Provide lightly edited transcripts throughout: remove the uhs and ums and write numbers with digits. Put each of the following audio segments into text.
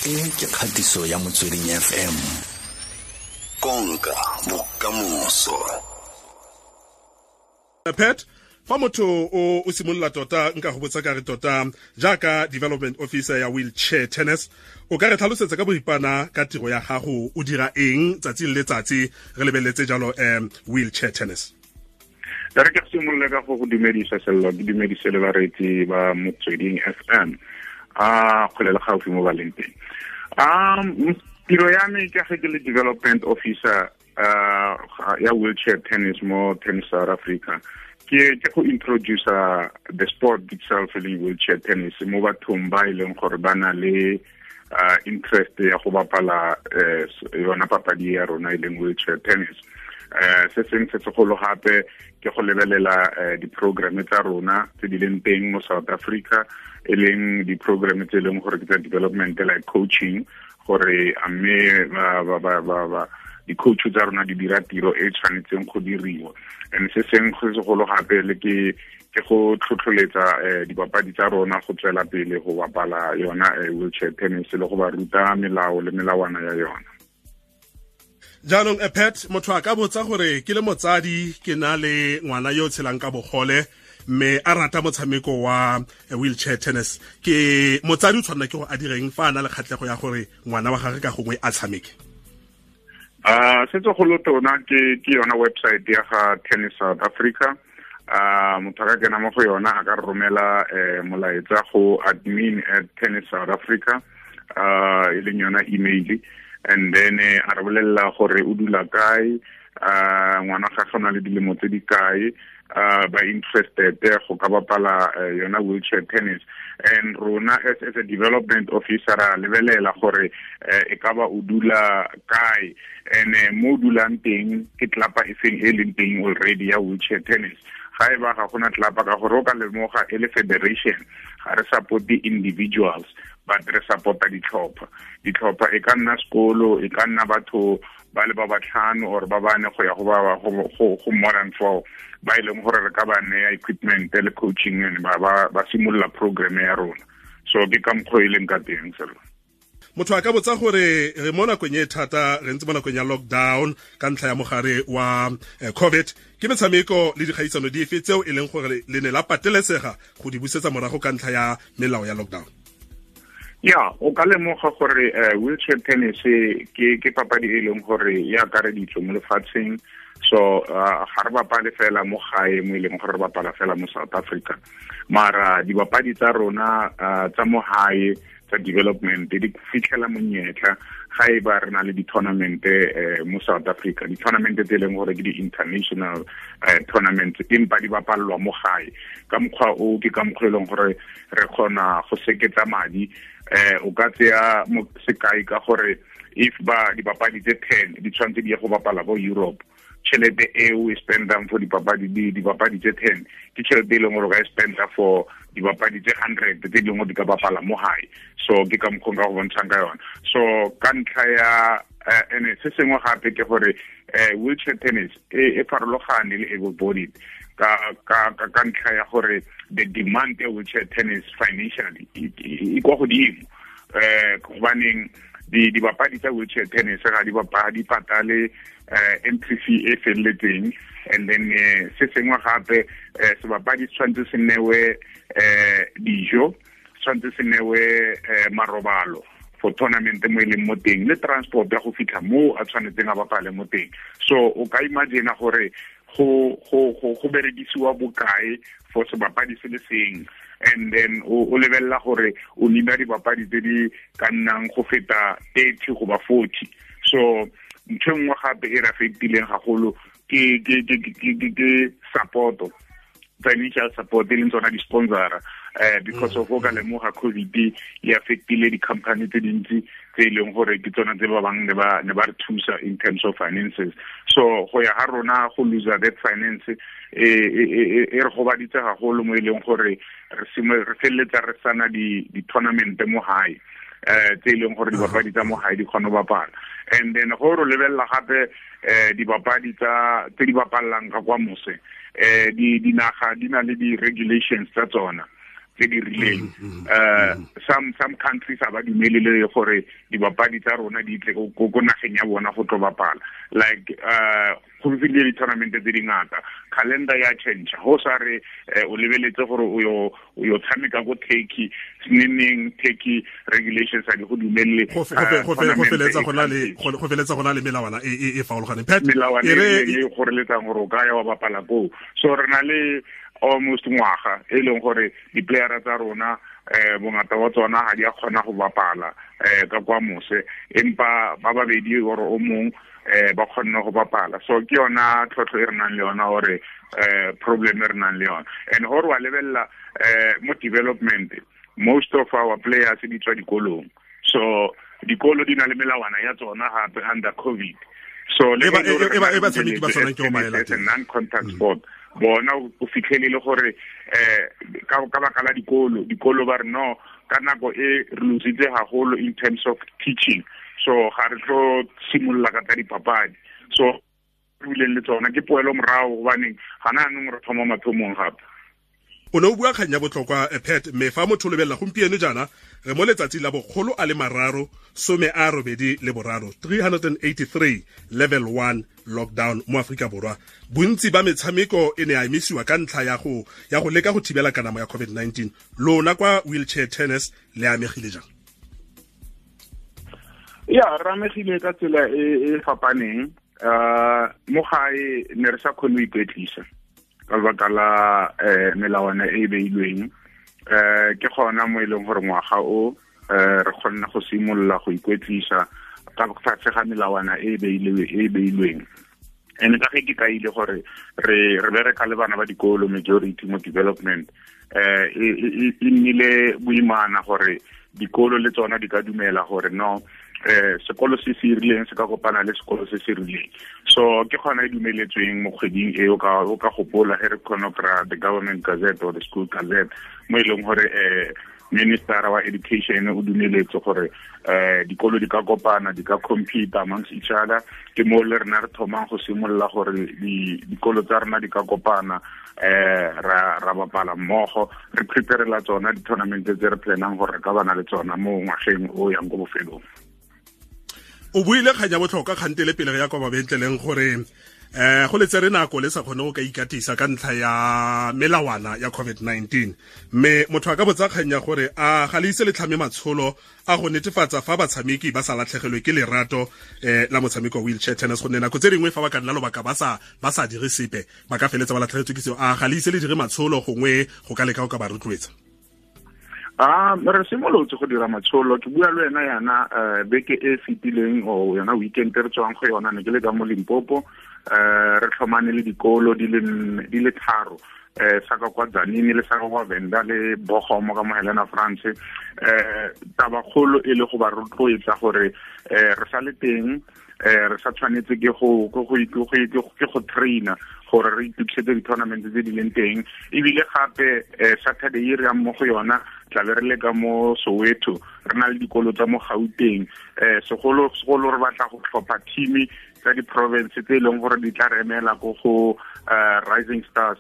E ke kgatiso ya Motsweding FM. Konka bokamoso. Pat, fa motho o simolola tota, nka go botsa ka re tota jaaka development officer ya wheelchair tennis, o ka re tlhalosetsa ka boripana ka tiro ya gago, o dira eng tsatsi le letsatsi re lebeletse jalo wheelchair tennis? Re ke simolole ka go go dumedisa, Sello, ke dumedise le bareetsi ba Motsweding FM a kgole le gaufi mo ba leng teng. Tiro ya me ke ge ke le development officer ya wheelchair tennis mo Tennis South Africa, ke go introduce the sport itself e leng wheelchair tennis mo bathong ba e leng gore ba na le interest ya go bapala yona papadi ya rona e leng wheelchair tennis. Se seng se segolo gape ke go lebelela di-programme tsa rona tse di leng teng mo South Africa, e leng di-programme tse e leng gore ke tsa development, like coaching, gore a mme ba di-coach tsa rona di dira tiro e tshwanetseng go diriwa. And se seng go segolo gape le ke go tlhotlholetsa dipapadi tsa rona go tswela pele go bapala yona wheelchair tennis le go ba ruta melao le melawana ya yona. Jaanong, Pat, motho a ka botsa gore ke le motsadi, ke na le ngwana yo o tshelang ka bogole mme a rata motshameko wa wheelchair tennis, ke motsadi o tshwanela ke go a direng fa a na le kgatlhego ya gore ngwana wa gagwe ka gongwe a tshameke? Se segolo tona ke yona website ya ga Tennis South Africa. Motho a ka kena mo go yona, a ka romela molaetsa go admin@tennissouthafrica, e leng yona email, and then a re bolelela gore o dula kae, ngwana ga gona le dilemo tse di kae, ba interested go ka bapala yona wheelchair tennis. And rona as a development officer ra lebelela gore e ka ba o dula kae, and mo o dulang teng ke tlapa e feng e leng teng already ya wheelchair tennis. Ga e ba ga gona tlapa, ka gore o ka lemoga e le federation ga re support individuals, but re supporta ditlhopha. Ditlhopha e ka nna sekolo, e ka nna batho ba le ba batlhano or ba bane go ya go ba go more than four, ba e leng gore re ka ba neya equipment le coaching and ba simolola program ya rona. So ke ka mokgwa e leng ka teng, Selo. Motho a ka botsa gore re mo nakong e thata, re ntse mo nakong ya lockdown ka ntlha ya mogare wa COVID, ke metshameko le dikgaisano dife tseo e leng gore le ne la patelesega go di busetsa morago ka ntlha ya melao ya lockdown? Ya, o ka lemoga gore wheelchair tennis ke papadi e leng gore e akareditswe mo lefatsheng. So ga re bapale fela mo gae mo e leng gore re bapala fela mo South Africa, mara dibapadi tsa rona tsa mo gae tsa development di fitlhela monyetla ga e ba re na le di-tournament mo South Africa, di-tournament tse e leng gore ke di-international tournament, empa di bapalelwa mo gae. Ka mokgwa o ke ka mokgwa e leng gore re kgona go seketsa madi. O ka tseya sekai ka gore if ba dibapadi tse 10 di tshwanetse di ye go bapala ko Europe, tšhelete eo e spendang for dipapadi tse 10 ke tšhelete e leng gore o ka e spenda for dibapadi tse 100 tse dingwe di ka bapala mo gae. So ke ka mokgwa ka go bontshang ka yona. So ka ntlha ya ene se sengwe gape ke gore wheelchair tennis e farologane le able bodied ka ntlha ya gore the demand ya wheelchair tennis financially e kwa godimo, gobaneng dibapadi tsa wheelchair tennis ga di bapadi patale entry fee e felletseng. And then se sengwe gape, sebapadi se tshwanetse se newe dijo, tshwanetse se newe marobalo for tournament mo e leng mo teng, le transport ya go fitlha mo a tshwanetseng a bapale mo teng. So o ka imagine gore go berekisiwa bokae for sebapadi se le seng, and then o lebelela gore o nina dibapadi tse di ka nnang go feta 30 goba 40. So ntho e nngwe gape e re affectileng gagolo ke support, financial support, e leng tsona di-sponsora, because of o ka lemoga COVID e affectile di-company tse dintsi tse e leng gore ke tsona tse ba bang ne ba re thusa in terms of finances. So go ya ga rona go lose that finance e re gobaditse gagolo mo e leng gore re feleletsa re sana di-tournament mo gae tse e leng gore dibapadi tsa mo gae di kgone go bapala. And then go re lebelela gape dibapadi tsa tse di bapallang ka kwa mose, di dinaga di na le di-regulations tsa tsona. tse di rileng. Some countries a ba dumelele gore dibapadi tsa rona di tle ko nageng ya bona go tlo bapala. Like go fitlhile di-tournament tse dingata, calendar ya change. Go sa re o lebeletse gore o yo tshameka ko Turkey, neng Turkey regulations a di go dumelele. Go feletsa go na le melawana e farologaneng. Pat, melawana e goreletsang gore o ka ya wa bapala koo. So re na le almost ngwaga e leng gore di-playera tsa rona bongata wa tsona ga di a kgona go bapala ka kwa mose, empa ba babedi or o mong ba kgonne go bapala. So ke yona tlhotlho e re nang le yona, gore problem e re nang le yona. And gore wa lebelela mo development, most of our players di tswa dikolong, so dikolo di na le melawana ya tsona gape under COVID. So le e ba tshameki ba tshwanang ke o maela non-contact sport bona o fitlhelele gore ka baka la dikolo ba re no ka nako e re lositse haholo in terms of teaching, so ga re tlo simolola ka tsa dipapadi. So re bileng le tsona ke poelo morago, gobaneng gana anong re thoma mathomong gape. O ne o bua kgang ya botlhokwa, Pat, mme fa motho o lebelela gompieno jaana re mo letsatsi la 383, 383 level 1 lockdown mo Aforika Borwa. Bontsi ba metshameko e ne a emisiwa ka ntlha ya go leka go thibela kanamo ya COVID-19. Lona kwa wheelchair tennis le amegile jang? Ya, re amegile ka tsela e fapaneng. Mo gae ne re sa kgone go ikwetlisa ka lebaka la melawana e beilweng. Ke gona mo e leng gore ngwaga o re kgonne go simolola go ikwetlisa ka tlase ga melawana e beilweng. And ka ge ke kaile gore re bereka le bana ba dikolo majority mo development, e nnile boimana gore dikolo le tsona di ka dumela gore no sekolo se se rileng se ka kopana le sekolo se se rileng. So ke gona e dumeletsweng mo kgweding e o ka gopola ge re kgona kry-a the government gazette or the school gazette, mo e leng gore minister wa education o dumeletse gore dikolo di ka kopana, di ka compete amongst each other. Ke mo le rena re thomang go simolola gore dikolo tsa rena di ka kopana, ra bapala mmogo, re preparela tsona di-tournament tse re planang gore re ka bana le tsona mo ngwageng o yang ko bofelong. O buile kgang ya botlhokwa kgante le pele re ya kwa mabentleleng gore go le tsere nako le sa kgone go ka ikatisa ka ntlha ya melawana ya COVID-19. Mme motho a ka botsa kgang ya gore a ga le ise le tlhame matsholo a go netefatsa fa batshameki ba sa latlhegelwe ke lerato la motshameko wa wheelchair tennis, gonne nako tse dingwe fa ba ka nna lobaka ba sa dire sepe ba ka feletsa ba latlhegetswe ke seo. A ga le ise le dire matsholo gongwe go ka leka go ka ba rotloetsa? Re simolotse go dira matsholo. Ke bua le wena yana beke e fetileng o yona weekend re tswang go yona, ne ke le ka mo Limpopo. Re tlhomane le dikolo di le tharo, sa ka kwa Tzaneen le sa ka kwa Venda le Bogomo ka mo Helena France. Tabakgolo e le go ba rotloetsa gore re sa le teng, re sa tshwanetse ke go traina gore re itukisetse di-tournament tse di leng teng. Ebile gape Saturday e re yang mo go yona tla be re le ka mo Soweto, re na le dikolo tsa mo Gauteng. Segolo re batla go tlhopha team tsa di-province tse e leng gore di tla re emela ko go Rising Stars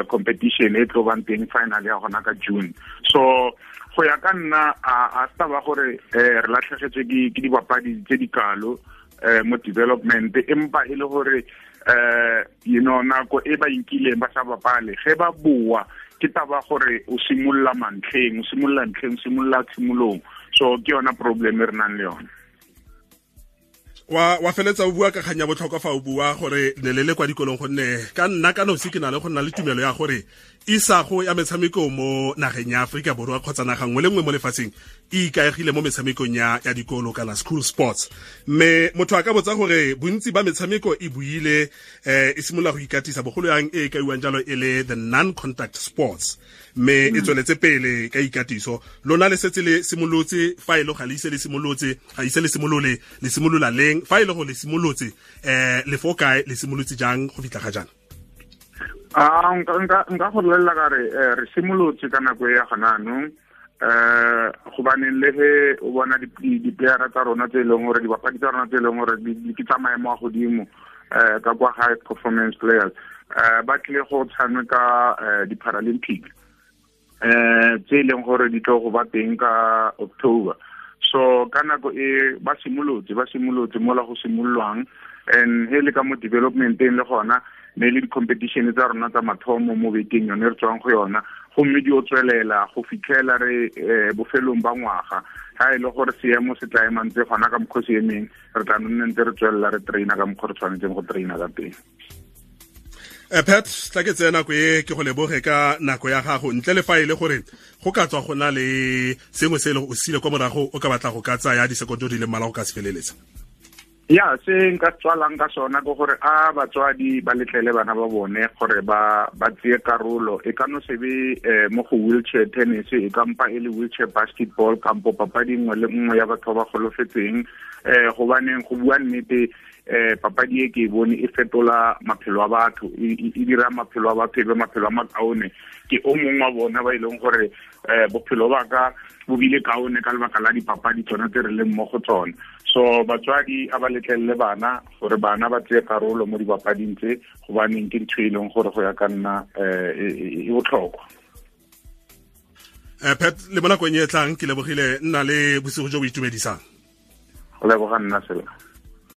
competition e tlo bang teng final ya gona ka June. So go ya ka nna a se taba gore re latlhegetswe ke dibapadi tse di kalo mo development, empa e le gore you know nako e ba inkileng ba sa bapale, ge ba boa ke taba gore o simolola mantlheng, o simolola ntlheng, o simolola tshimolong. So ke yona problem e re nang le yona. Wa feletsa o bua ka kgang ya botlhokwa fa o bua gore ne le le kwa dikolong, gonne ka nna ka nosi ke na le go nna le tumelo ya gore isago ya metshameko mo nageng ya Aforika Borwa kgotsa naga nngwe le nngwe mo lefatsheng e ikaegile mo metshamekong ya dikolo kana school sports. Mme motho a ka botsa gore bontsi ba metshameko e buile e simolola go ikatisa bogolo yang e kaiwang jalo e le the non-contact sports, mme e tsweletse pele ka ikatiso. Lona le setse le simolotse, fa e le ga le ise le simolotse, ga ise le simolole, le simolola leng? Fa e le go le simolotse, le fo kae, le simolotse jang go fitlha ga jaana? Nka go bolelela ka re re simolotse ka nako e ya gona anong, gobaneng le ge o bona di-playera tsa rona tse e leng gore dibapadi tsa rona tse e leng gore di tsa maemo a godimo ka kwa high performance players, ba tlile go tshameka di-Paralympic. Tse e leng gore di tlo go ba teng ka October. So ka nako e ba simolotse mola go simololwang, and he le ka mo developmenteng le gona ne le di-competition tsa rona tsa mathomo mo bekeng yone re tswang go yona, gomme di o tswelela go fitlhela re bofelong ba ngwaga. Ha e le gore seemo se tla emang tse gona ka mokgwa se emeng, re tla nne ntse re tswelela re traina ka mokgwa re tshwanetseng go traina ka teng. Pat, tla ke tseye nako e ke go leboge ka nako ya gago, ntle le fa e le gore go ka tswa go na le sengwe se e le o sile kwa morago o ka batla go ka tsaya disekoto di le mmalwa go ka se feleletsa. Ya, se nka tswalang ka sona ke gore a batswadi ba letlele bana ba bone gore ba tseye karolo. E ka no se be mo go wheelchair tennis, e ka mpa e le wheelchair basketball kampo papadi nngwe le nngwe ya batho ba ba golofetseng. Gobaneng go bua nnete, papadi e ke e bone e fetola maphelo a batho, e dira maphelo a batho e be maphelo a makaone. Ke o mongwe wa bona ba e leng gore bophelo ba ka bo bile kaone ka lebaka la dipapadi tsona tse re leng mo go tsona. So batswadi a ba letlelele bana gore bana ba tseye karolo mo dipapading tse, gobaneng ke ntho e leng gore go ya ka nna e botlhokwa. Pat, le mo nakong e tlang ke lebogile, nna le bosigo jo bo itumedisang. Go leboga nna sela.